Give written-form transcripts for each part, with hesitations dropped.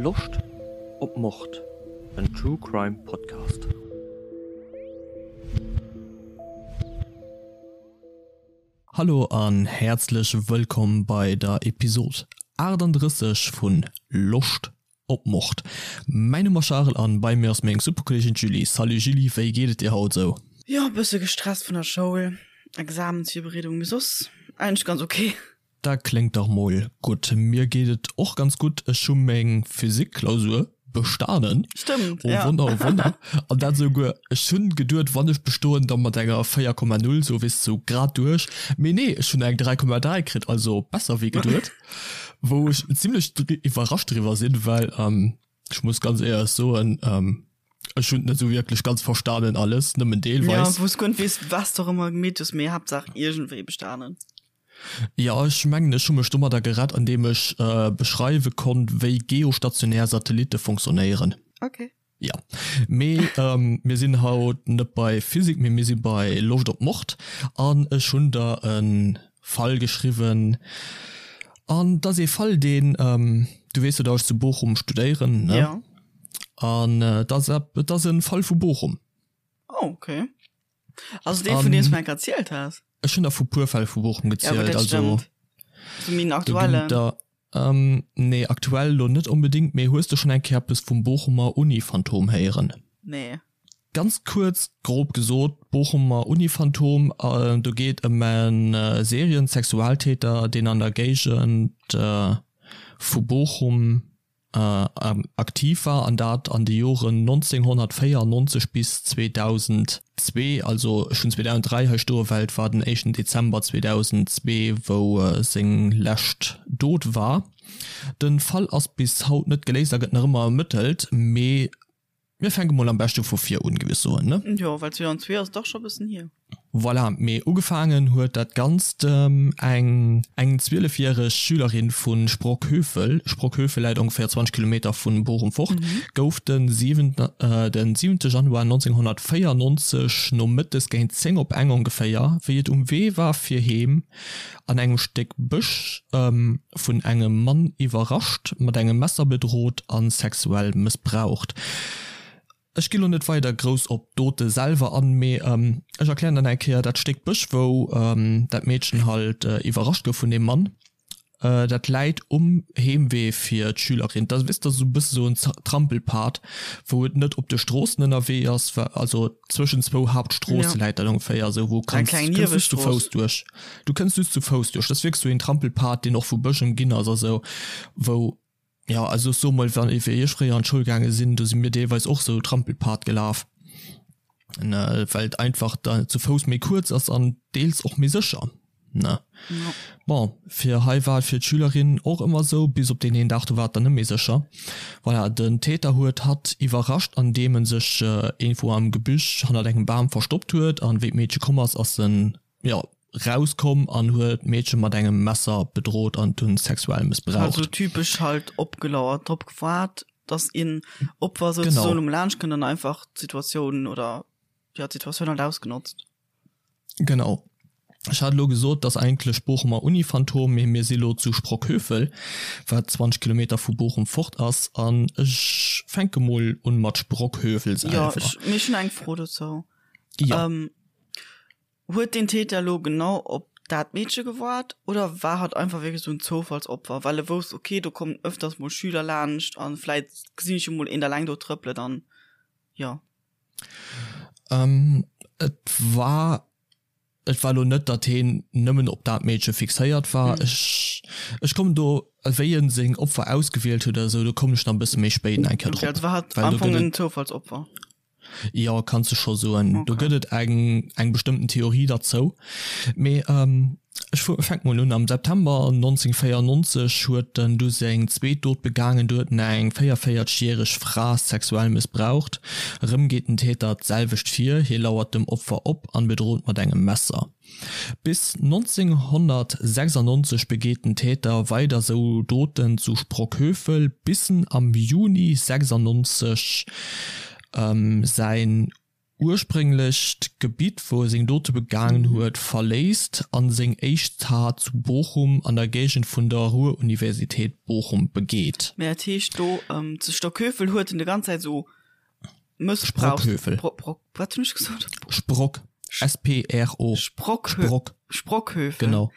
Loscht op Mord? En True Crime Podcast. Hallo an häerzlech wëllkomm bei der Episod 38 vun Loscht op Mord. Mäin Numm ass Charel an bei mir ass meng super Kolleegin d'Julie. Salut Julie, wéi geet et dir haut esou? Jo, bësse gestresst vun der Schoul, Examensvirbereedung, mee soss eigentlech ganz ok. Dat kléngt dach mol gutt. Mir geet et och ganz gutt. Ech hu meng Physik-Klausur bestanen. Stëmmt, Oh ja. Wonner, oh Wonner. An dat esouguer, ech hunn geduet, wann ech bestoen, da mat enger 4,0, sou weess de, sou grad duerch. Mee nee, ech hunn eng 3,3 kritt, also besser wéi geduet. Wou ech zimlech iwwerrascht driwwer sinn, well ech muss ganz éierlech soen, ech hunn et net sou wierklech ganz verstanen alles, nëmmen deelweis. Ja, wou s guer net weess, wat s de och ëmmer gemeet hues, mee Haaptsaach iergendwéi bestanen. Jo, ech mengen ech hu mech domadder gerett an deem ech beschreiwe konnt wéi geostationär Satellitte fonctionnéieren. Ok. Jo, mee mir sinn haut net bei Physik, mee mir si bei Loscht op Mord an ech hunn der e Fall geschriwwen an et ass ee Fall deen, du weess jo datt ech zu Bochum studéieren, ne? Jo. An et ass et ass e Fall vu Bochum. Oh, ok. Also dee vun deem s du mir enk erzielt has? Ech hunn der vu puer Fäll vu Bochum Ja, gutt, gezielt, dat also stëmmt. So méi en do ginn et aktuellen. der, nee aktuell lo net onbedéngt, mee hues de schonn eng Kéier eppes vum Bochumer Uni-Phantom héieren? Nee. Ganz kuerz, grob gesot, Bochumer Uni-Phantom, do geet ëm e Serien-Sexualtäter, deen an der Géigend vu Bochum aktiv war, an dat an de Joren 1994 bis 2002, also ech hunn 2003 hei stoe well et war den éischten Dezember 2002 wou seng lescht Dot war. De Fall ass bis haut net geléist a gëtt nach ëmmer ermëttelt, mee Mir fänke mol am beschte vu vir un, géif ech soen, ne? Jo, well 2002 ass dach scho bëssen hier. Voilà, mee ugefaangen huet dat Ganzt eng eng zwielefjäreg Schülerin vu Sprockhövel, Sprockhövel läit ongeféier 20 Kilometer vu Bochum fort, gouf de siwente Januar 1994 nomëttes géint 10 op eng ongeféier, wéi et um Wee war fir heem, an engem Stéck Bësch vun engem Mann iwwerrascht, mat engem Messer bedrot a sexuell mëssbraucht. Ech gi lo net weider grouss op d'Dote selwer an, mee ech erklären dann eng Kéier dat Stéck Bësch, wou dat Meedchen halt iwwerrascht gouf vun deem Mann. Dat läit um Heemwee fir d'Schülerin. Dat ass esou e bësse sou en Trampelpad, wou et net op de Stroossen ënnerwee ass, also zwëschen zwou Haaptstroosse läit dat ongeféier, esou wou kanns kënns just zu Fouss duerch. Du kënns just zu Fouss duerch. Dat ass wierklech sou een Trampelpad, deen och vu Bësch ëmginn ass a sou, wou, jo, also ech soe mol, wann, wéi ech fréier an d'Schoul gaange sinn, do si mir deelweis och sou Trampelpad gelaf, ne, well et einfach da zu Fouss méi kuerz ass an deels och méi sécher. Ne? Ja. Bon, fir hei war et fir d'Schülerin och ëmmer sou, bis op deen een Dag, do war et dann net méi sécher. Voilà, den Täter huet hatt iwwerrascht, andeem en sech iergendwou am Gebüsch hannert engem Bam verstoppt huet an wéi d'Meedche komm ass, ass en, jo, rauskomm an huet d'Meedche mat engem Messer bedrot an dunn sexuell mëssbraucht. Also typesch halt opgelauert, drop gewaart, dass een Opfer souzesoen um laanscht kënnt an einfach d'Situatioun oder, jo, d'Situatioun halt ausgenotzt. Genau. Ech hat elo gesot, dass eigentlech Bochumer Uni-Phantom, mee mir si lo zu Sprockhövel, wat 20 Kilometer vu Bochum fort ass. An ech fänke mol un mat Sprockhövel Jo, selwer. ech, mee ech hunn eng Fro dozou. Jo. Ähm, huet den Täter elo genau op dat Meedche gewaart oder war hatt einfach wierklech esou en Zoufallsopfer, well e wousst, okay, do kommen ëfters mol Schüler laanscht an vläit gesinn ech jo mol een da eleng do trëppelen an jo. Ähm, et war et war lo net, datt heen nëmmen op dat Meedche fixéiert war. Mhm. Ech ech kommen do, wéi en seng Opfer ausgewielt huet oder esou, do kommen ech nach e bësse méi spéit nach eng Kéier Okay, drop. also war hatt Well am do Fong gëtt en et Zoufallsopfer. Jo, kanns de scho soen. Do Okay. gëtt et eng eng bestëmmten Theorie derzou. Mee Ech fänke mol un, Am September 1994 huet en du seng zweet Dot begaangen. Do huet en eng 44 järeg Fra sexuell mëssbraucht. Erëm geet den Täter d'selwecht vir, hie lauert dem Opfer op an bedrot mat engem Messer. Bis 1996 begeet den Täter weider sou Doten zu Sprockhövel, bis en am Juni 96 säin. Ursprénglecht Gebitt, wou e seng Dote begaangen huet, verléisst an seng éischt Tat zu Bochum an der Géigend vun der Ruhr-Universität Bochum begeet. Mä dat heescht do zu Stockhövel huet en de ganz Zäit esou Mëssbrauchs. Sprockhövel. Bro, Bro, wat hunn ech gesot? Sprock, S-P-R-O. Sprockhö. Sprock. Sprockhövel. Genau.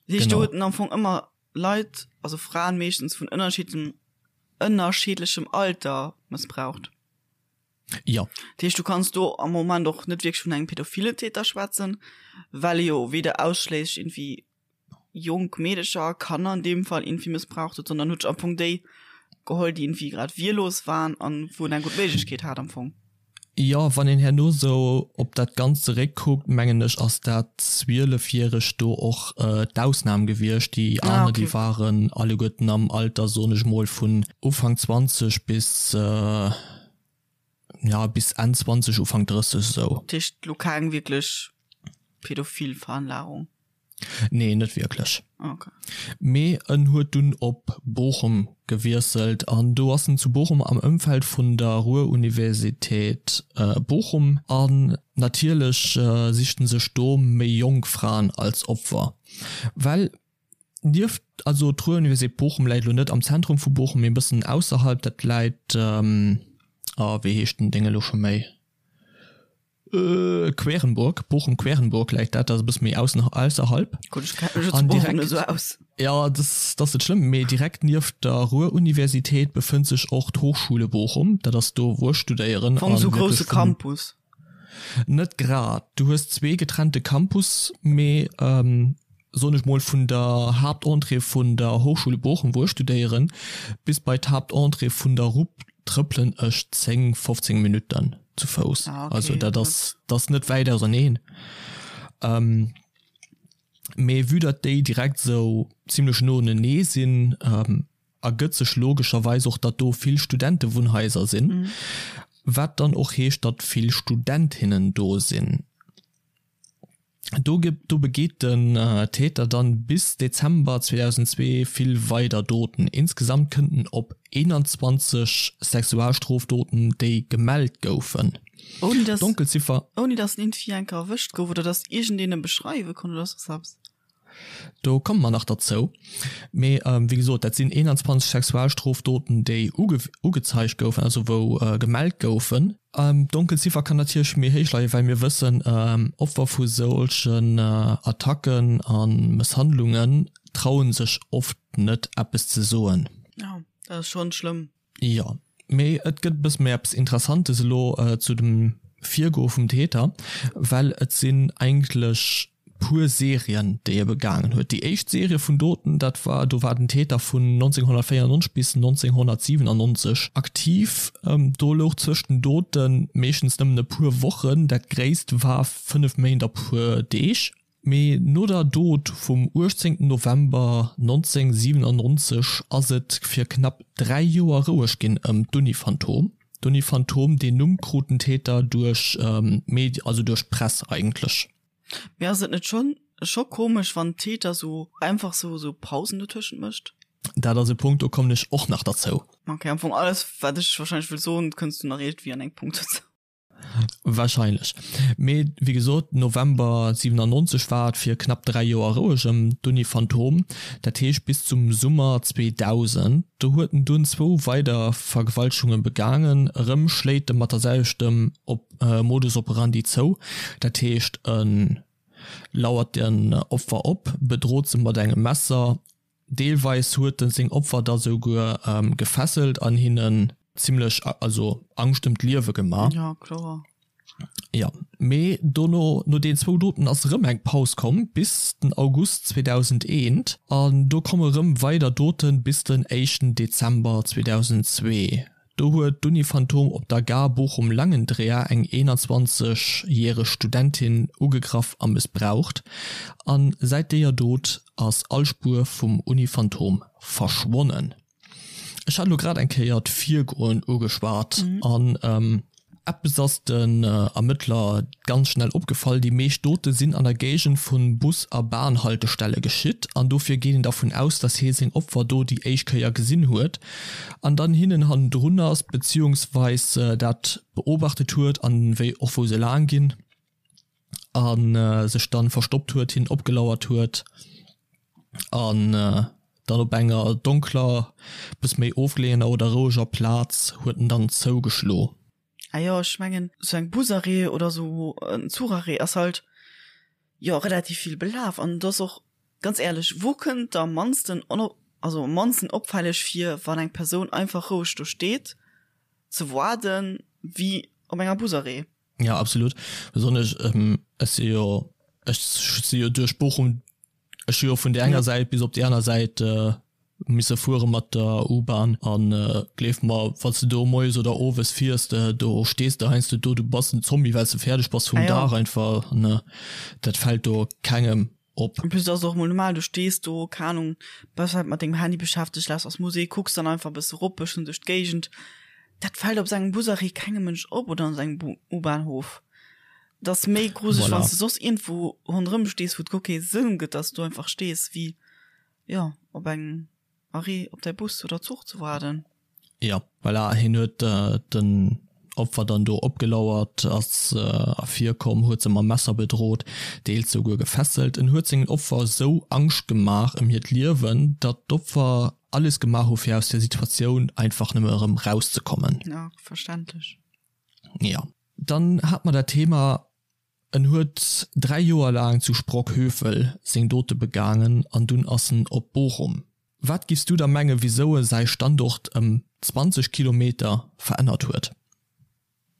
Dat heescht do Genau. huet en am Fong ëmmer Leit, also Fraen meeschtens vun ënnerschiddem, ënnerschiddlechem Alter mëssbraucht. Jo. Dat heescht, du kanns do am Moment och net wierklech vun engem pädophile Täter schwätzen, well e jo weder ausschléisslech irgendwie jonk Meedecher, Kanner an deem Fall irgendwie mëssbraucht huet, sondern huet sech am Fong déi geholl, déi irgendwie grad wehrlos waren an wou en eng gutt Méiglechkeet hat am Fong. Jo, wann een herno sou op dat Ganzt zeréckkuckt, mengen ech, ass dat Zwielefjäregt do och d'Ausnam gewiescht. Déi aner, déi waren alleguerten am Alter, soen ech mol, vun Ufank 20 bis, ja, bis Enn 20, Ufank 30 esou. Dat heescht elo keng wierklech pädophil Veranlagung? Nee, net wierklech. Okay. Mee en huet dunn op Bochum gewiesselt an do ass en zu Bochum am Ëmfeld vun der Ruhr-Universität Bochum an natierlech sicht en sech do méi jonk Fraen als Opfer, well nieft, also d'Ruhr-Universität Bochum läit elo net am Zentrum vu Bochum, mee e bëssen ausserhalb, dat läit, oh wéi heescht den Déng elo scho méi? Querenburg, Bochum-Querenburg läit dat, dat ass e bësse méi aussen, ausserhalb. Gutt, ech kenne mech zu Bochum net esou aus. Jo, dat ass net schlëmm, mee direkt nieft der Ruhr-Universität befënnt sech och d'Hochschule Bochum, dat ass do wou ech studéieren. Am Fong esou grousse Campus. Net grad, du hues zwee getrennte Campus, mee soen ech mol, vun der Haaptentrée vun der Hochschule Bochum, wou ech studéieren, bis bei d'Haaptentrée vun der RUP trëppelen ech 10, 15 Minutten zu Fouss. Ah, okay, Also dat ass, dat ass net wäit auserneen. Ähm, mee vue datt déi direkt esou zimlech no unenee sinn, ähm, ergëtt sech logescherweis och, datt do vill Studentewunnhaiser sinn, wat dann och heescht, datt vill Studentinnen do sinn. Do do begeet den Täter dann bis Dezember 2002 vill weider Doten. Insgesamt kënnt en op 21 Sexualstrofdoten, déi gemellt goufen. Ouni dass, D'Donkelziffer. ouni dass en iergendwéi eng Kéier erwëscht gouf oder dass iergendeen e beschreiwe konnt oder soss eppes. Do komme mer nach derzou. Mee wéi gesot, dat sinn 21 Sexualstrofdoten, déi ugezeigt goufen, also wou gemellt goufen. D'Donkelziffer kann natierlech méi héich leien, well mir wëssen, Opfer vu solchen Attacken a Mësshandlungen traue sech oft net, eppes ze soen. Jo, dat ass schonn schlëmm. Jo, mee et gëtt e bësse méi eppes Interessantes elo zu dem Virgoe vum Täter, well et sinn eigentlech puer Serien, déi e begaangen huet. Déi éischt Serie vun Doten, dat war, do war den Täter vun 1994 bis 1997 aktiv. Do louch zwëscht den Dote meeschtens nëmmen e puer Wochen, dat gréisst war 5 Méint a puer Deeg. Mee no der Dot vum 18 November 1997 ass et fir knapp 3 Joer roueg ginn ëm d'Uni-Phantom. D'Uni-Phantom, deen Numm krut den Täter duerch d'Medien, also duerch d'Press eigentlech. Mee ass et net schonn scho komesch, wann d'Täter sou einfach sou sou Pausen dotëschent mécht? Dat ass e Punkt, do kommen ech och nach derzou. Ok, am Fong alles wat ech wahrscheinlech wëll soen, kënns du nach iergendwéi an engem Punkt dozou. Wahrscheinlech. Mee wéi gesot, November 97 war et fir knapp 3 Joer roueg ëm d'Uni Phantom, dat heescht bis zum Summer 2000. Do huet en dunn zwou weider Vergewaltegunge begaangen. Erëm schléit e mat der selwechtem Modus operandi zou, dat heescht e lauert den Opfer op, bedrot se mat engem Messer, Deelweis huet en seng Opfer da souguer gefesselt an hinnen zimlech, also Angscht ëm d'Liewe gemaach. Ja, kloer. Ja, mee dono, no den zwou Doten ass erëm eng Paus komm bis den August 2001 an do komme rëm weider Doten bis den éischten Dezember 2002. Do huet d'Uni Phantom op der Gare Bochum-Langendreer eng 21 järeg Studentin ugegraff a mëssbraucht. A säit deeër Dot ass all Spuer vum Uni Phantom verschwonnen. Ech hat elo grad eng Kéier d'Virgoen ugeschwat an. Eppes ass den Ermëttler ganz schnell opgefall, déi meescht Dote sinn an der Géigend vu Bus a Bahnhaltestelle geschitt an dofir geet een dervun aus, dass hie seng Opfer do déi éischt Kéier gesinn huet an dann hinnen hannendrun ass, beziehungsweis dat beobachtet huet an wéi och wou se laang ginn a sech dann verstoppt huet, hinnen opgelauert huet an dann op enger donkler, bëss méi ofgeleeëner oder roueger Plaz huet en dann zougeschlo. Ah jo, ech mengen sou eng Busarrêt oder sou en Zucharrêt ass halt jo relativ vill belaf an et ass och ganz éierlech, wou kënnt der am mannsten also am mannsten opfälleg vir, wann eng Persoun einfach roueg do steet ze waarden, wéi op enger Busarrêt? Ja absolut, besonnesch ech si jo ech si jo duerch Bochum Ech hu jo vun där enger Säit bis op déi aner Säit misse fuere mat der U-Bahn an gleef mer, wann s de do moies oder owes fiers, do stees de heiansdo do, du bass en Zombie, well s de fäerdeg bass vum Dag einfach. An dat fält do kengem op. En plus ass et och mol normal, du stees do, keng Ahnung, bass vläicht mat dengem Handy beschäftegt, lauschters Musek, kucks dann einfach e bësse rop, bëssen duerch d'Géigend. Dat fält op sou engem Busarrêt kengem Mënsch op oder an sou engem U-Bahnhof. Et ass méi gruseleg, wann s de soss iergendwou ronderëm stees, wou et guer kee Sënn gëtt, dass du do einfach stees, wéi, jo, op engem Arrêt op däi Bus oder Zuch ze waarden. Jo, voilà, hien huet den Opfer dann do opgelauert, ass ervirkomm, huet se mam Messer bedrot, deels souguer gefesselt. En huet sengen Opfer esou Angscht gemaach ëm hiert Liewen, datt d'Opfer alles gemaach hu fir aus där Situatioun einfach nëmme erëm rauszekommen. Jo, verständlech. Jo. Dann hat mer dat Thema, en huet 3 Joer laang zu Sprockhövel seng Dote begaangen an dunn ass en op Bochum. Wat giffs du da mengen, wisou e säi Standort ëm 20 Kilometer verännert huet?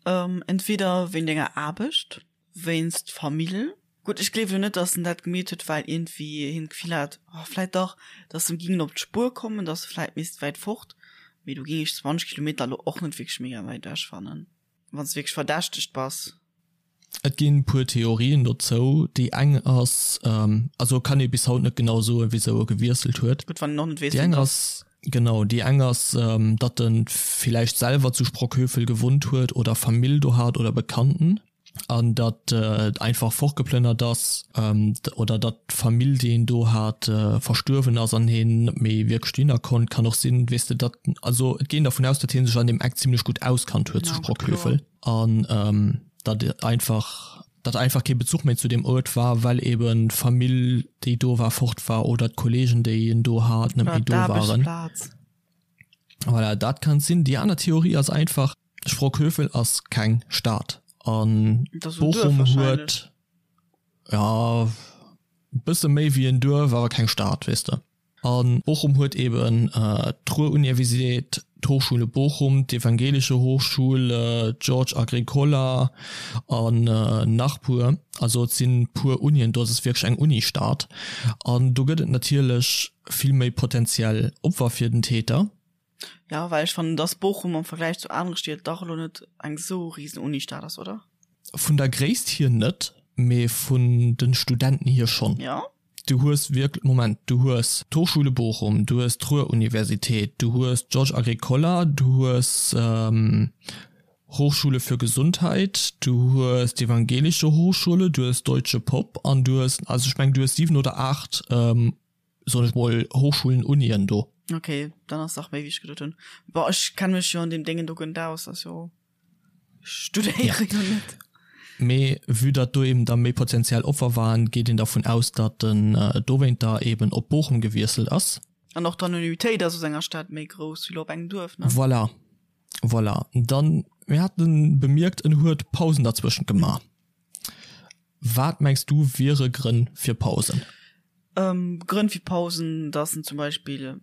Entweder wéint enger Aarbecht, wéinst Famill. Gutt, ech gleewen elo net, datt en dat gemeet huet, well iergendwéi hien d'Gefill hat, oh vläit dach, datt se em gingen op d'Spuer kommen, datt e vläit misst wäit fort. Mee do géing ech 20 Kilometer elo och net wierklech mega wäit ewech fannen. Wann s de wierklech verdächtegt bass. Et ginn puer Theorien dozou. Déi eng ass, also kann ee bis haut net genau soen, wisou e gewiesselt huet. Gutt, wann een och net weess, wien et ass. Genau, déi eng ass, datt e villäicht selwer zu Sprockhövel gewunnt huet oder Famill do hat oder Bekannten. An datt et einfach fortgeplënnert ass oder datt d'Famill, déi een do hat, verstuerwen ass an hien net méi wierklech dohinner konnt. Kann och sinn, weess de, datt, also et geet een dervun aus, datt hie sech an deem Eck zimlech gutt auskannt huet zu Sprockhövel an datt einfach, datt einfach kee Bezuch méi zu deem Uert war, well eben d'Famill, déi do war, fort war oder d'Kollegen, déi en do hat, net méi do waren. Voilà, dat kann sinn. Déi aner Theorie ass einfach, Sprockhövel ass keng Stad an Bochum huet ja bësse méi wéi en Duerf, awer keng Stad weess de. An Bochum huet eben d'Ruhr-Universität, d'Hochschule Bochum, d'Evangelische Hochschule, d'Georg Agricola an nach puer. Also et sinn puer Unien do, et ass wierklech eng Unistad an do gëtt et natierlech vill méi potentiell Opfer fir den Täter. Ja, well ech fannen, dass Bochum am Vergläich zu anere Stied dach elo net eng sou riesen Unistad ass, oder? Vun der Gréisst hier net, mee vun den Studenten hier schonn. Ja. Du hues wierklech, Moment, du hues d'Hochschule Bochum, du hues d'Ruhr-Universität, du hues d'Georges Agricola, du hues Hochschule für Gesundheit, du hues d'Evangelische Hochschule, du hues Deutsche Pop an du hues, also ech mengen, du hues 7 oder 8 soen ech mol, Hochschulen, Unien do. Ok, dann ass dach méi wéi ech geduet hunn. Bon, ech kenne mech jo an deem Déngen do guer net aus, ass jo, ech studéiere jo net. Mee vue datt do eben da méi potenziell Opfer waren, geet een dervun aus, datt en dowéinter eben op Bochum gewiesselt ass. An och d'Anonymitéit ass aus enger Stad méi grouss wéi lo op engem Duerf, ne? Voilà, voilà. Dann, mir haten bemierkt, en huet Pausen derzwëschent gemaach. Wat mengs du wiere Grënn fir Pausen? Grënn fir Pausen, dass en zum Beispill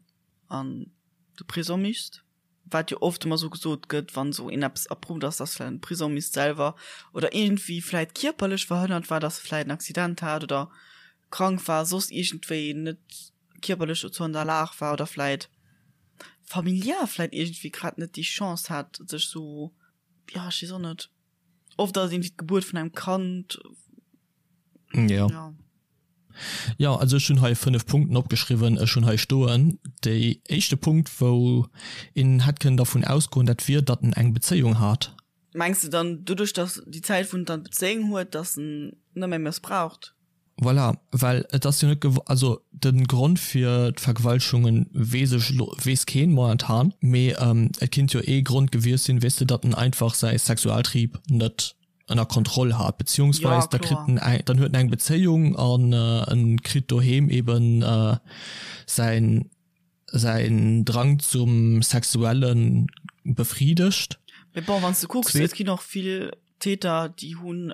an de Prisong misst, wat jo oft ëmmer sou gesot gëtt, wann sou een eppes erprouft ass, dass vläicht an de Prisong misst selwer oder iergendwéi vläicht kierperlech verhënnert war, dass e vläicht en Accident hat oder krank war, soss iergendwéi net kierperlech dozou an der Lag war oder vläicht familiär vläicht iergendwéi grad net déi Chance hat, sech sou, jo, ech weess och net. Oft ass irgendwie d'Gebuert vun engem Kand. Ja. Ja. Ja, also ech hunn hei 5 Punkten opgeschriwwen. Ech hunn hei stoen, déi éischte Punkt, wou een hätt kënnen dervun ausgoen, dat wier, datt en eng Bezéiung hat. Mengs de dann doduerch, dass déi Zäit wou en dann d'Bezéiung huet, dass en net méi mëssbraucht? Voilà, well et ass jo net gew-, also de Grond fir d'Vergewaltegungen weess ech elo, weess keen momentan, mee et kinnt jo ee Grond gewiescht sinn, weess de, datt en einfach säi Sexualtrieb net ënner Kontroll hat, beziehungsweis da kritt en eng, dann huet en eng Bezéiung an en kritt doheem eben säin, säin Drang zum Sexuelle befriedegt. Mee bon, wann s de kucks, et ginn och vill Täter, déi hunn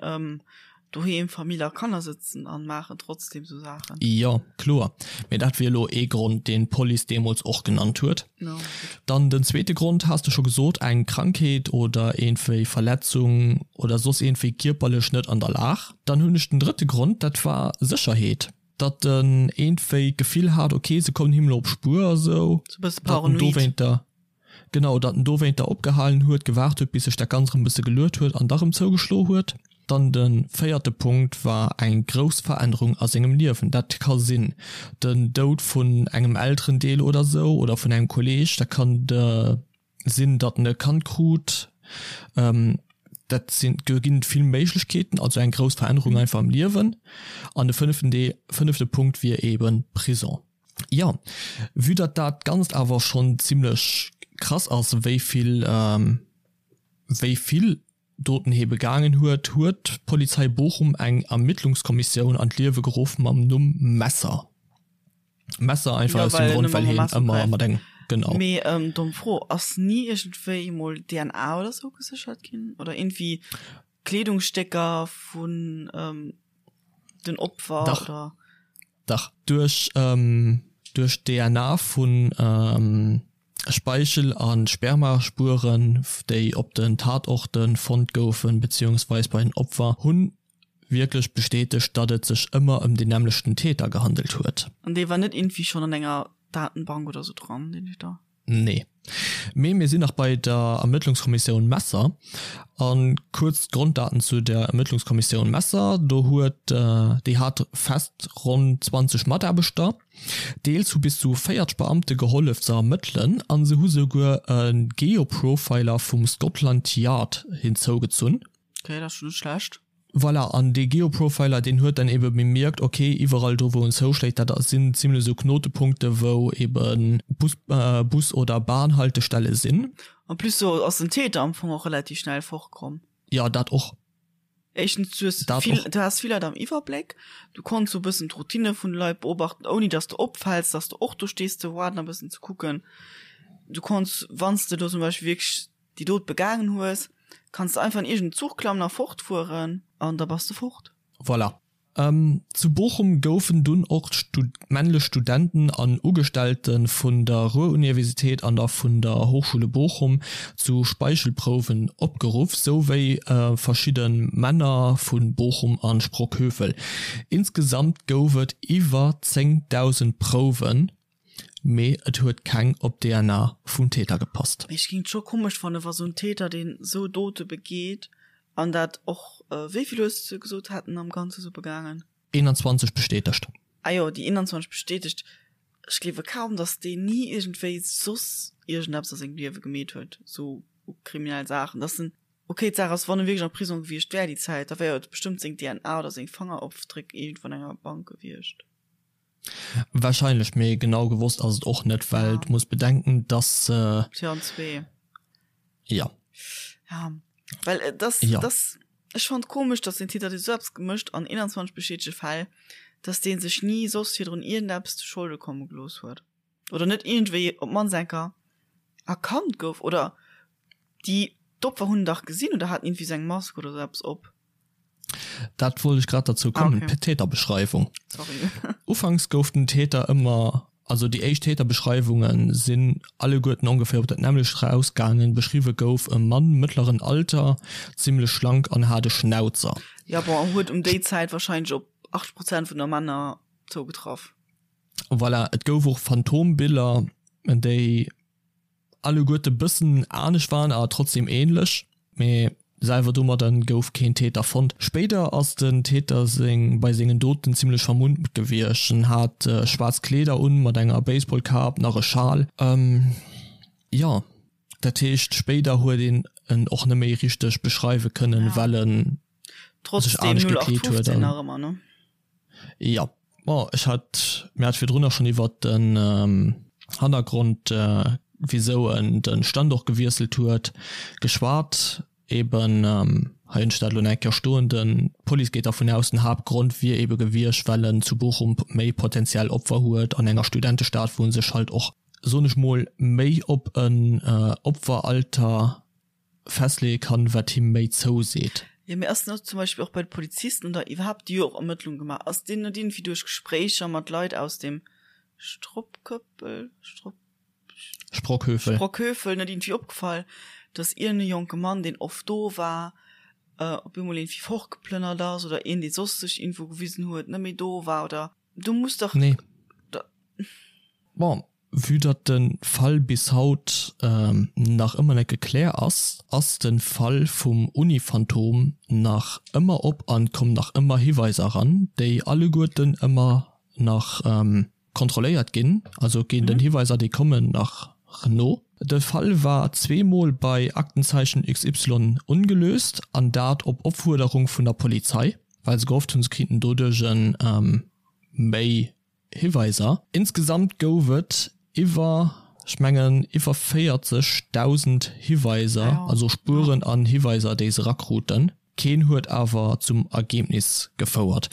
doheem Famill a Kanner sëtzen an maachen trotzdem sou Saachen. Jo, kloer. Mee dat wier elo ee Grond, deen d'Police deemools och genannt huet. Dann den zweete Grond has de scho gesot, eng Krankheet oder iergendwéi Verletzung oder soss iergendwéi kierperlech net an der Lag. Dann hunn ech den drëtte Grond, dat war Sécherheet. Datt en iergendwéi d'Gefill hat, ok, se kommen him elo op d'Spuer a sou. Sou e bësse paranoid. Genau, datt en dowéinter opgehalen huet, gewaart huet, bis sech dat Ganzt erëm e bësse geluet huet an da rëm zougeschlo huet. Dann de véierte Punkt war eng grouss Verännerung a sengem Liewen. Dat ka sinn den Doud vun engem Elterendeel oder sou oder vun engem Kolleeg. Dat kann de sinn, datt en e Kand krut. Dat sinn, do ginn et vill Méiglechkeeten, also eng grouss Verännerung einfach am Liewen. An de fënneften Deel, fënnefte Punkt wier eeben Prison. Jo, vue datt dat Ganzt awer schonn zimlech krass ass, wéi vill, wéi vill Doten hie begaangen huet, huet d'Polizei Bochum eng Ermittlungskommissioun an d'Liewe geruff mam Numm Messer. Messer einfach aus dem Grond, well hien ëmmer mat engem, genau. Mee domm Fro, ass ni iergendwéi emol DNA oder sou geséchert ginn? Oder iergendwéi Kleedungsstécker vun den Opfer? Dach. Oder? Dach, duerch duerch d'DNA vu Speichel a Spermaspueren, déi op den Tatorte fonnt goufen, beziehungsweis bei den Opfer, hu wierklech bestätegt, datt et sech ëmmer ëm den nämmlechten Täter gehandelt huet. An dee war net iergendwéi schonn an enger Datenbank oder sou dran, deen Täter? Nee. Mee mir sinn nach bei der Ermëttlungskommissioun Messer. A kuerz d'Gronddaten zu der Ermëttlungskommissioun Messer, Do huet, déi hat fest ronn 20 Mataarbechter. Deels hu bis zu 40 Beamte gehollef ze ermëttelen a se hu souguer e Geoprofiler vum Scotland Yard hinzougezunn. Okay, dat ass schon net schlecht. Voilà, an dee Geoprofiler, deen huet dann ebe bemierkt, ok, iwwerall do wou en zouschléit, dat sinn zimlech esou Knotepunkte wou ebe Bus, Bus oder Bahnhaltestelle sinn. En plus do ass den Täter am Fong och relativ schnell fortkomm. Jo, dat och. Éischtens, du hues vill, du has vill Leit am Iwwerbléck, du konns sou e bëssen d'Routine vun de Leit beobachten, ouni datt s de opfäls, datt s de och do stees ze waarden a bëssen ze kucken. Du konns, wann s de do zum Beispill wierklech déi Dot begaangen hues, kanns de einfach an iergend Zuch klammen a fortfueren an da bass de fort. Voilà. Zu Bochum goufen dunn och männlech Studenten an Ugestellte vun der Ruhr-Universität an der vun der Hochschule Bochum zu Speichelprouwen opgeruff, souwéi verschidde Männer vu Bochum a Sprockhövel. Insgesamt gouf et iwwer 10.000 Prouwen. Mee et huet keng op d'DNA vum Täter gepasst. Mee ech géing et scho komesch fannen, wa sou en Täter, deen sou Dote begeet, an dat och, wéi vill hues de gesot, hat en am Ganze sou begaangen? 21 bestätegt. Ah jo, déi 21 bestätegt. Ech gleewe kaum, datt deen ni iergendwéi soss iergendeppes a sengem Liewe gemeet huet, sou kriminell Saachen, datt en, ok, d'Saach ass, wann e wierklech am Prisong gewiescht wär déi Zäit, da wär jo bestëmmt seng DNA oder seng Fangerofdréck iergendwou an enger Bank gewiescht. Wahrscheinlech, mee genau gewosst ass et och net, well du muss bedenken, dass se. 2002. Ja. Ja, well äh, das, ja. das, ech fand komisch, dass den Täter dee sou eppes gemécht an 21 bestätege Fäll, dass dee sech ni soss virdrun iergendeppes zu Scholde komme gelooss huet. Oder net iergendwéi op d'mannst eng Kéier erkannt gouf. Oder déi, d'Opfer hunn en dach gesinn oder haten iergendwéi sou eng Mask oder sou eppes op. Dat wollt ech grad derzou kommen, ah, okay. Täterbeschreiwung. Sorry. Ufanks gouf den Täter ëmmer, also déi éischt Täterbeschreiwunge sinn alleguerten ongeféier op dat nämmlecht rausgaangen. Beschriwwe gouf e Mann mëttleren Alter, zimmlech schlank an hat e Schnauzer. Ja bon, huet um déi Zäit wahrscheinlech op 80 Prozent vun der Männer zougetraff. Voilà, et gouf och Phantombiller, déi alleguerte bëssen anescht waren, awer trotzdem ähnlech, mee selwer domadder gouf keen Täter fonnt. Spéider ass den Täter seng bei sengen Doten zimmlech vermummt gewiescht, en hat schwaarz Kleeder un mat enger Baseballkap, nach e Schal, jo dat heescht spéider huet een. en och net méi richteg beschreiwe kënnen, well en sech anescht gekleet huet. Trotzdem 0815 nach ëmmer, ne? Jo, bon, ech hat, mir hat virdrunner schonn iwwert den Hannergrond, wisou en de Standort gewiesselt huet, geschwat. Eben, hei hunn ech dat elo nach eng Kéier stoen, den, d'Police geet dervun aus, den Haaptgrond wier ebe gewiescht, well en zu Bochum méi potenziell Opfer huet, an enger Studentestad, wou en sech halt och, soen ech mol, méi op en Opferalter festleeë kann, wat him méi zouseet. Jo, mee ass net zum Beispill och bei de Polizisten oder iwwerhaapt, déi jo och Ermëttlung gemaach, ass deenen net iergendwéi duerch Gespréicher mat Leit aus dem Stroppköppel, Stropp. Sprockhöfel. Sprockhöfel net iergendwéi opgefall, dass iergend e jonke Mann, deen oft do war, op eemol iergendwéi fortgeplënnert ass oder een, dee soss sech iergendwou gewisen huet, net méi do war oder do muss dach. Nee. Bon, vue datt de Fall bis haut nach ëmmer net gekläer ass, ass de Fall vum Uni-Phantom nach ëmmer op an kommen nach ëmmer Hiweiser eran, déi alleguerten ëmmer nach Kontrolléiert ginn, also ginn den Hiweiser déi kommen nach no. De Fall war zweemol bei Aktenzeichen XY ongelöst an dat op Opfuerderung vun der Polizei, well se gehofft hunn se kriiten doduerch méi Hiweiser. Insgesamt gouf et iwwer, ech mengen iwwer 40.000 Hiweiser, also Spueren an Hiweiser déi se erakruten. Keen huet awer zum Ergebnis gefouert.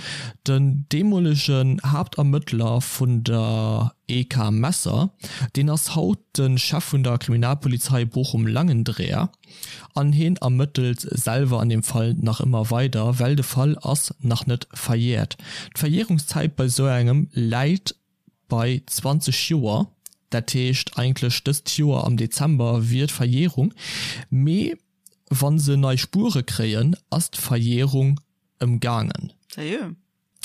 Den deemolegen Haaptermëttler vun der EK Messer, deen ass haut de Chef vun der Kriminalpolizei Bochum-Langendreer an heen ermëttelt selwer an deem Fall nach ëmmer weider, well de Fall ass nach net verjährt. D'Verjährungszäit bei sou engem läit bei 20 Joer, dat heescht eigentlech dëst Joer am Dezember wier d'Verjährung, mee Wann se nei Spuere kréien, ass d'Verjährung ëmgaangen. Sérieux?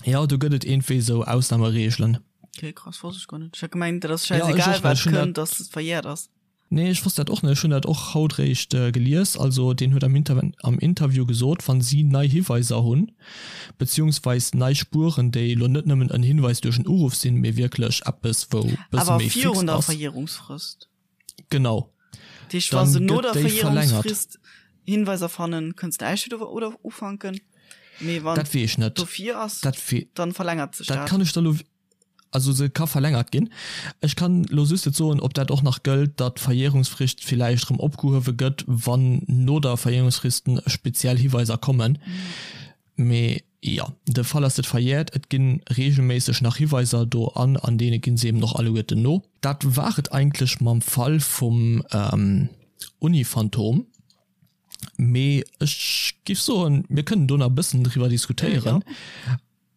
Jo, do gëtt et iergendwéi sou Ausnahmereegelen. Okay, krass, wosst ech guer net. Ech hat gemengt, dat ass schäisegal, wat kënnt, dass et verjährt ass. Nee, ech wosst dat och net. Ech hunn dat och haut réischt gelies. Also deen huet am am Interview gesot, wann si nei Hiweiser hunn, beziehungsweis nei Spueren, déi elo net nëmmen en Hinweis duerch en Uruff sinn, mee wierklech eppes, wou bësse méi fix ass. Awer virun der Verjährungsfrist. Genau. Dat heescht, wa se no der Verjährungsfrist Hinweiser fannen, kënns de näischt wieder oder ufanken. Mee wann dat weess ech net. dofir ass, dat dann verlängert sech dat. Dat kann ech der lo, also se ka verlängert ginn. Ech kann lo just net soen, ob dat och nach gëllt, datt d'Verjährungsfrist villäicht erëm opgehuewe gëtt, wann no der Verjährungsfrist speziell Hiweiser kommen. Mee jo, de Fall ass net verjährt, et gi reegelméisseg nach Hiweiser do an an deene gi se eben och alleguerten no. Dat war et eigentlech mam Fall vum Uni-Phantom. Mee ech giff soen, mir kënnen do nach e bëssen driwwer diskutéieren,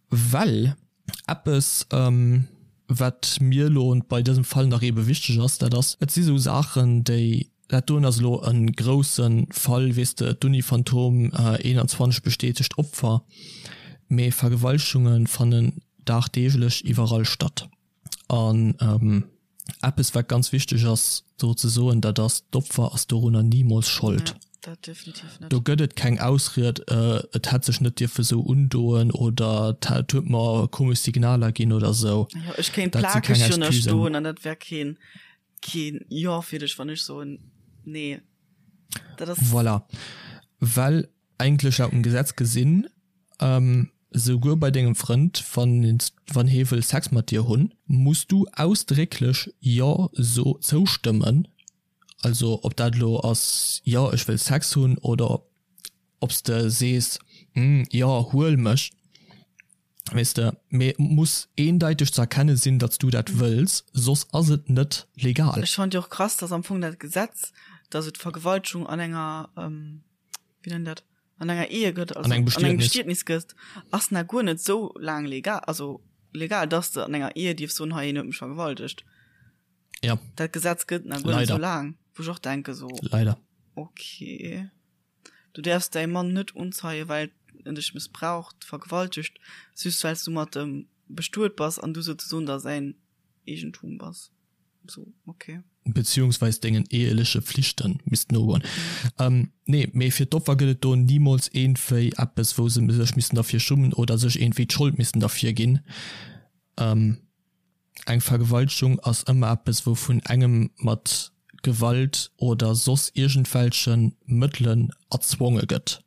well eppes, wat mir elo bei dësem Fall nach eebe wichteg ass, dat ass, et si sou Saachen, déi Dat doen ass elo e grousse Fall, weess de, d'Uni Phantom, 21 bestätegt Opfer, mee Vergewaltegunge fannen dagdeeglech iwwerall statt. An eppes wat ganz wichteg ass do ze soen, dat ass, d'Opfer ass dorunner nimools Schold. Do gëtt et keng Ausried, et hätt sech net dierfe sou undoen oder et huet mer komesch Signaler ginn oder sou. Ech kéint plakeg jo stoen an dat wär keen Keen Jo fir dech, wann ech soen Nee. Dat ass. Voilà. Well eigentlech laut dem Gesetz gesinn, souguer bei dengem Frënd, wann wann hee wëll Sex mat dir hunn, muss du ausdrécklech Jo so zoustëmmen. Also ob dat elo ass Jo ech wëll Sex hunn oder ob s de sees Hm jo huel mech. Weess de, mee et muss eendeiteg ze erkenne sinn, datt s du dat wëlls, soss ass et net legal. Ech fannen jo och krass, datt am Fong dat Gesetz, datt et Vergewaltegung an enger, wéi nennt dat, an enger Ehe gëtt, also an engem Bestietnis gëtt, ass nach guer net esou laang legal, also legal, datt s de an enger Ehe dierfs soen, hei een huet mech vergewaltegt. Ja. Dat Gesetz gëtt nach guer net esou laang, wou ech och denke sou. Leider. Okay. Du däerfs däi Mann net unzeien, well en dech mëssbraucht, vergewaltegt, just well s du mat em bestuet bass an du souzesoen da säin Eegentum bass. Sou, okay. Beziehungsweis dengen eheleche Flichte misst nogoen. Nee, mee fir d'Opfer gëtt et do nimools iergendwéi eppes, wou se sech missten derfir schummen oder sech iergendwéi d'Schold missten derfir ginn. Eng Vergewaltegung ass ëmmer eppes, wou vun engem mat. Gewalt oder soss iergendwelche Mëttelen erzwonge gëtt.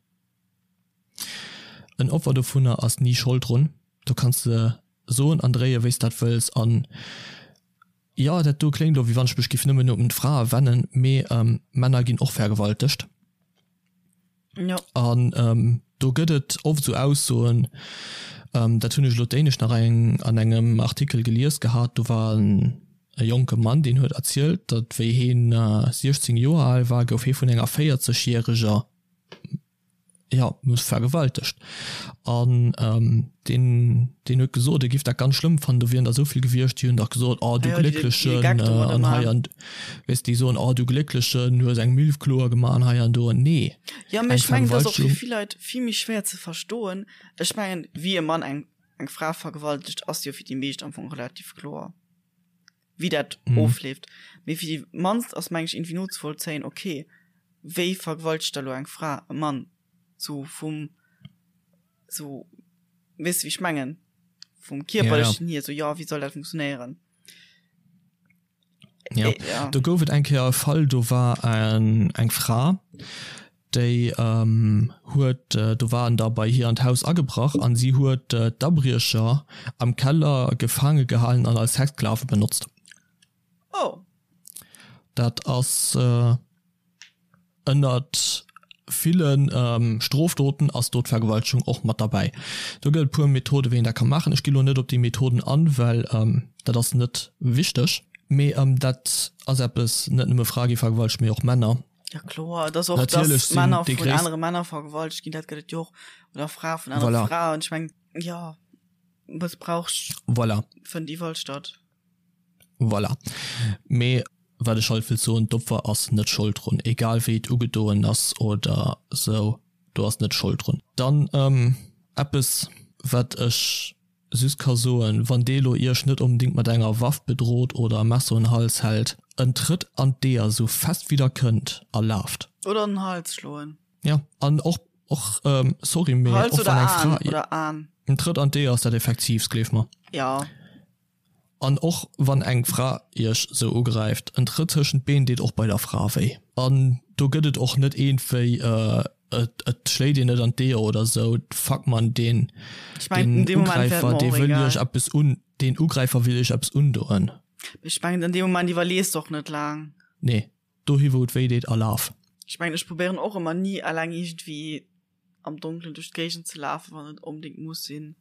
En Opfer dovunner ass ni Schold drun. Do kanns de soen an dréie wéi s dat wëlls an jo, dat do kléngt elo wéi wann ech mech giff nëmmen un d'Frae wennen, mee Männer ginn och vergewaltegt. Jo. An do gëtt et oft esou Aussoen, dat hunn ech elo d'éinescht nach eng an engem Artikel gelies gehat, do war en e jonke Mann, deen huet erzielt, datt wéi heen 16 Joer al war, gouf hee vun enger 40 järeger jo, vergewaltegt. An deen, deen huet gesot, e giff dat ganz schlëmm fannen, do wieren der esou vill gewiescht, déi hunn dach gesot, oh du Glécklechen, an hei an, weess déi soen, oh du Glécklechen, du hues eng Milf kloer gemaach an hei an do. Nee, Jo, mee ech mengen, dat ass och fir vill Leit vill méi schwéier ze verstoen. Ech mengen, wéi e Mann eng, eng Fra vergewaltegt, ass jo fir déi meescht am Fong relativ kloer, wéi dat ofleeft. Mee fir déi mannst ass, meng ech, iergendwéi nozevollzéien, okay, wéi vergewaltegt da lo eng Fra e Mann? Sou vum, sou, weess de wéi ech mengen? Vum kierperlechen hier, sou, jo, wéi soll dat funktionéieren? Ja. Ja. Do gouf et eng Kéier e Fall, do war eng, eng Fra, déi ähm, huet, äh, do waren der bei hir an d'Haus agebrach an si huet äh, d'Abriecher am Keller gefaange gehalen an als Sexsklave benotzt. Oh. Dat ass äh, Ënnert ville Strofdoten ass do d'Vergewaltegung och mat derbäi. Do gëtt et puer Methoden, wéi een dat ka maachen. Ech gi lo net op déi Methoden an, well dat ass net wichteg. Mee dat ass eppes, net nëmme Frae gi vergewaltegt, mee och Männer. Ja kloer, et ass och, dass Männer vun anere Männer vergewaltegt ginn, dat gëtt et jo och, oder Frae vun anere Fraen. Ech mengen, jo, Mëssbrauch fënnt iwwerall statt. Voilà. Mee wat ech halt wëllt soen, d'Opfer ass net Schold drun, egal wéi et ugedoen ass oder sou, do ass net Schold drun. Dann eppes wat ech just ka soen, wann dee lo iech net onbedingt mat enger Waff bedroht oder e Messer un Hals hält, en Trëtt an d'Eeër sou fest wéi der kënnt a laaft. Oder an den Hals schloen. Ja, an och, och sorry, mee och wann eng Fra. Hals oder Aan. En Trëtt an d'Eeër ass dat effektiivst, gleef mer. Ja. An och wann eng Fra iech sou ugräift, en Trëtt tëschent d'Been deet och bei der Fra wéi. An do gëtt et och net eent wéi et schléit een net an d'Eeër oder sou. Fuck man, deen Ugräifer dee wëll iech eppes un, deen Ugräifer wëll iech eppes undoen. Ech mengen an deem Moment iwwerlees de och net laang. Nee, dohi wou et wéi deet a laf. Ech mengen ech probéieren och ëmmer ni eleng iergendwéi am Donkelen duerch d'Géigend ze lafen, wann et onbedéngt muss sinn.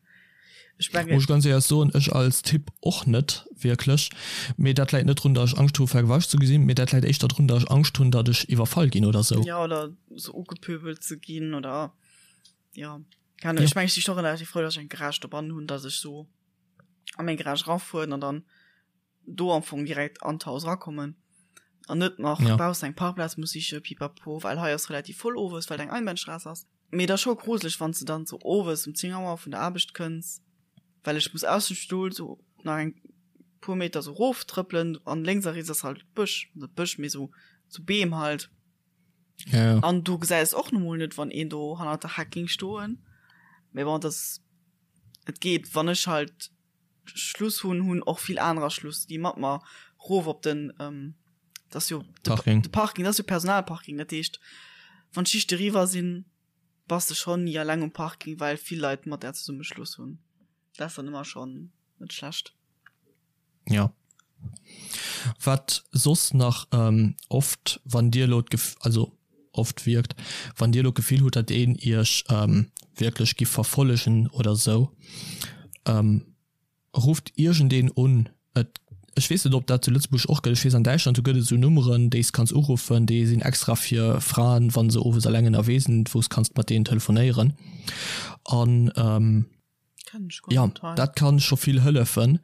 Ech mengen. Muss ech ganz éierlech soen, ech als Typ och net wierklech. Mee dat läit net drun, datt ech Angscht hu vergewaltegt ze gesinn, mee dat läit éischter drun, datt ech Angscht hunn, datt ech iwwerfall ginn oder sou. Jo, oder sou ugepöbelt ze ginn oder jo, keng Ahnung. Ech mengen, ech si scho relativ frou, datt ech eng Garage dobannen hunn, datt ech sou a meng Garage erafueren an dann do am Fong direkt an d'Haus erakommen an net nach ja. baussen eng Parkplaz muss siche pipapo, well hei ass relativ voll owes, well eng Einbahnstraße ass. Mee dat ass scho gruseleg, wann s de dann sou owes um 10 Auer vun der Aarbecht kënns, well ech muss aus dem Stull sou nach eng puer Meter sou rof trëppelen an lénks a riets ass halt Bësch, net Bësch, mee sou sou Beem halt. Ja, ja. An du gesäis och nu mol net, wann een do hannert der Heck géing stoen. Mee bon, dat et geet, wann ech halt Schluss hunn, hunn och vill anerer Schluss, déi mat mer rof op den ähm, dat ass jo de Parking. De Parking, dat ass jo Personalparking. Dat heescht, wann d'Schichte eriwwer sinn, bass de schonn ni alleng um Parking, well vill Leit mat där zesumme Schluss hunn. Dat ass dann ëmmer schonn net schlecht. Ja. Wat soss nach ähm, oft, wann Dir elo d'Gef also oft wierkt, wann Dir elo d'Gefill hutt, datt een Iech ähm, wierklech giff verfollegen oder sou, ähm, rufft iergendeen un. Et, ech weess net, ob dat zu Lëtzebuerg och gëtt, ech weess an Däitschland, do gëtt et esou Nummeren, déi s kanns uruffen, déi sinn extra fir Fraen, wa se owes eleng ënnerwee sinn, wou s kanns mat deenen telefonéieren. An ähm, Ja, dat kann scho vill hëllefen.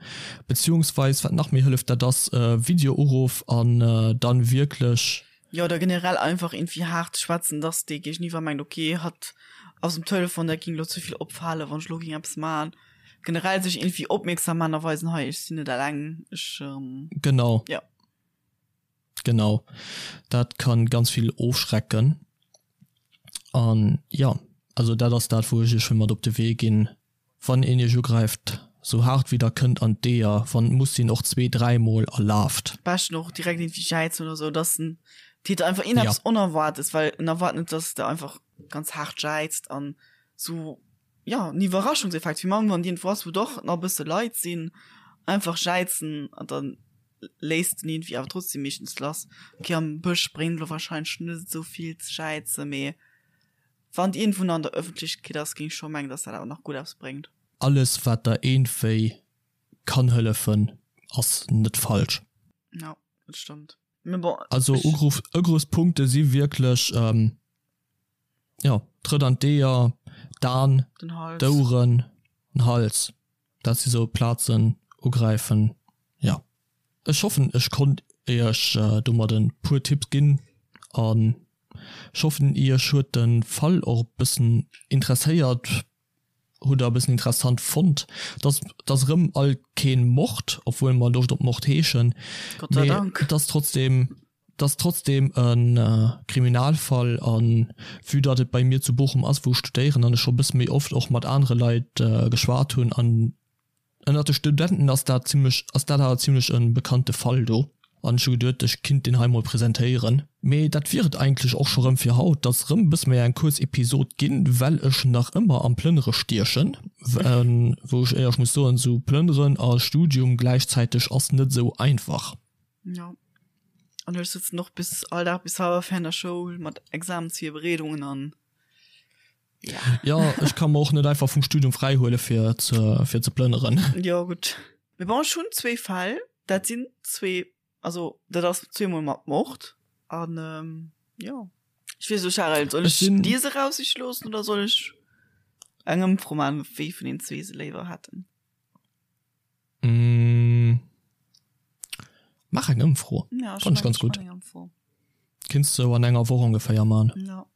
Beziehungsweis wat nach méi hëlleft, dat ass Videouruff an dann wierklech. Jo, oder generell einfach irgendwie haart schwätzen, dass dee Géigeniwwer mengt, okay, hatt ass um Telefon, dat ging lo ze vill opfalen, wann ech lo ging eppes man. Generell sech irgendwie opmierksam man a weisen, hei, ech sinn net eleng, ech. Genau. Jo. Genau, dat kann ganz vill ofschrecken. An jo, also dat ass dat wou ech iech wëll mat op de Wee ginn, wann een iech ugräift, Sou haart wéi der kënnt an d'Eeër, wann et muss sinn och zwee, dräimol a laaft. Beschten och direkt iergendwéi jäizen oder sou, dass den Täter einfach iergendeppes ja. Onerwaartes, well en erwaart net, dass de einfach ganz haart jäizt an sou, ja, en Iwwerraschungseffekt, wéi mann wann iergendwou ass, wou doch nach e bësse Leit sinn, einfach jäizen an dann léisst den iergendwéi awer trotzdem meeschtens lass. Ok, am Bësch bréngt elo wahrscheinlech net esou vill ze jäizen, mee wann iergendwou nach an der Ëffentlechkeet ass, géing ech scho mengen, dass dat awer nach gutt eppes bréngt. Alles wat der eenwéi kann hëllefen ass net falsch. Jo, dat stëmmt. Mee bon, Also ech. Ugruff, Ugriffspunkte si wierklech, jo, Trëtt an d'Eeër, d'An, Den Hals. d'Oueren, den Hals. Dat si sou Plazen, ugräifen, jo. Ech hoffen ech konnt iech domat e puer Tipps ginn an ech hoffen iech huet de Fall och e bëssen interesséiert. Hutt der e bëssen interessant fonnt. Dass dass erëm alt keen Mord, obwuel mer Loscht op Mord heeschen, Gott sei mee Dank. et ass trotzdem, et ass trotzdem e Kriminalfall an vue datt et bei mir zu Bochum ass wou ech studéieren an ech scho e bësse méi oft och mat anere Leit geschwat hunn an Ënnert de Studenten ass dat zimlech, ass dat awer zimlech e bekannte Fall do an ech hu geduet ech kinnt deen hei mol presentéieren. Mee dat wier et eigentlech och scho rëm fir haut. 't ass rëm e bësse méi eng kuerz Episod ginn, well ech nach ëmmer am Plënnere stiechen, wou ech éierlech muss soen, sou Plënneren a Studium gläichzäiteg ass net sou einfach. Jo, an ech sëtzen och bis all Dag bis hallwer 4 an der Schoul mat Examensvirbereedungen an Ja. Ja, ech ka mer och net einfach vum Studium fräihuele fir ze, fir ze plënneren. Jo, gutt. Mee bon, ech hunn zwee Fäll, dat sinn zwee, also dat ass zweemol mat Mord an jo. Ech weess net, Charel, soll ech dir se raussiche loossen oder soll ech eng Ëmfro maachen, wéi vun den zwee se léiwer hätten? Mm. Maach eng Ëmfro. Ja, Fand ech ganz gutt. Kinns de an enger Woch ongeféier man. Ja.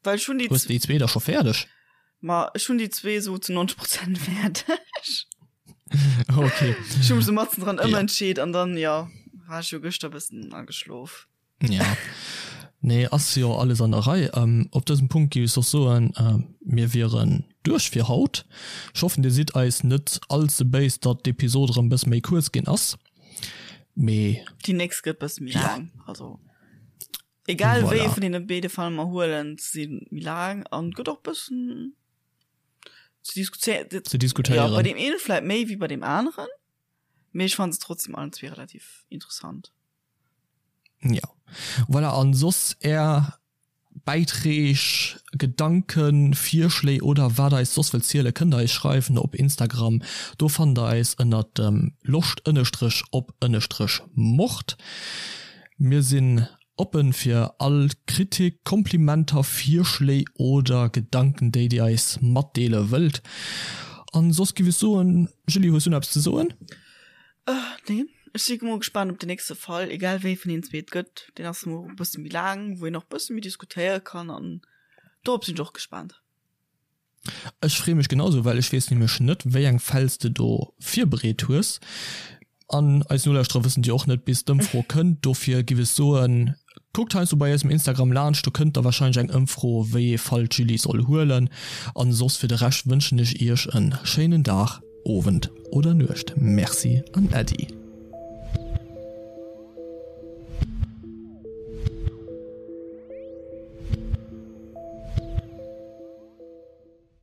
Well ech hunn déi Hues de déi zwee da scho fäerdeg? Ma ech hunn déi zwee sou zu 90 Prozent fäerdeg. Okay. Ech hu mech sou matzen dran ëmentscheet an dann, jo, war ech jo gëschter bëssen ageschlof. Ja. Nee, ass jo alles an der Rei. Ähm, op dësem Punkt géif ech soss soen, äh, mir wieren duerch fir haut. Ech hoffen, dir sidd eis net all ze béis, datt d'Episod erëm bësse méi kuerz ginn ass. Mee. Déi nächst gëtt bësse méi laang. Also, egal wéi ee vun deene béide Fall mer huelen, se si méi laang an gëtt och bëssen ze diskutéieren. Ze diskutéieren. Ja, bei deem eene vläit méi wéi bei deem aneren, mee ech fanne se trotzdem allen zwee relativ interessant. Ja. Voilà, an soss är Bäiträg, Gedanken, Virschléi oder wat eis soss wëllt zielen, kënnt der eis schreiwen op Instagram. Do fannt der eis ënnert dem loscht ënnestrech op ënnestrech mord. Mir sinn oppen fir all Kritik, Komplimenter, Virschléi oder Gedanken déi dir eis matdeele wëllt. An soss giff ech soen, Julie hues du nach eppes ze soen? Nee, ech si mol gespaant op den nächste Fall, egal wéi vun deenen zwee et gëtt. Deen ass mol e bësse méi laang, wou een och e bësse méi diskutéiere kann an dorop sinn ech och gespaant. Ech freeë mech genausou, well ech weess nämlech net, wéi eng Fäll s de do virbereet hues. An eis Nolauschterer wëssen déi och net, bis d'Ëmfro kënnt. Dofir giff ech soen, kuckt heiansdo bei eisem Instagram laanscht, do kënnt da warscheinlech eng Ëmfro, wéi ee Fall d'Julie soll huelen. An soss fir de Rescht wënschen ech iech en schéinen Dag. Owend oder Nuecht. Merci an Äddi.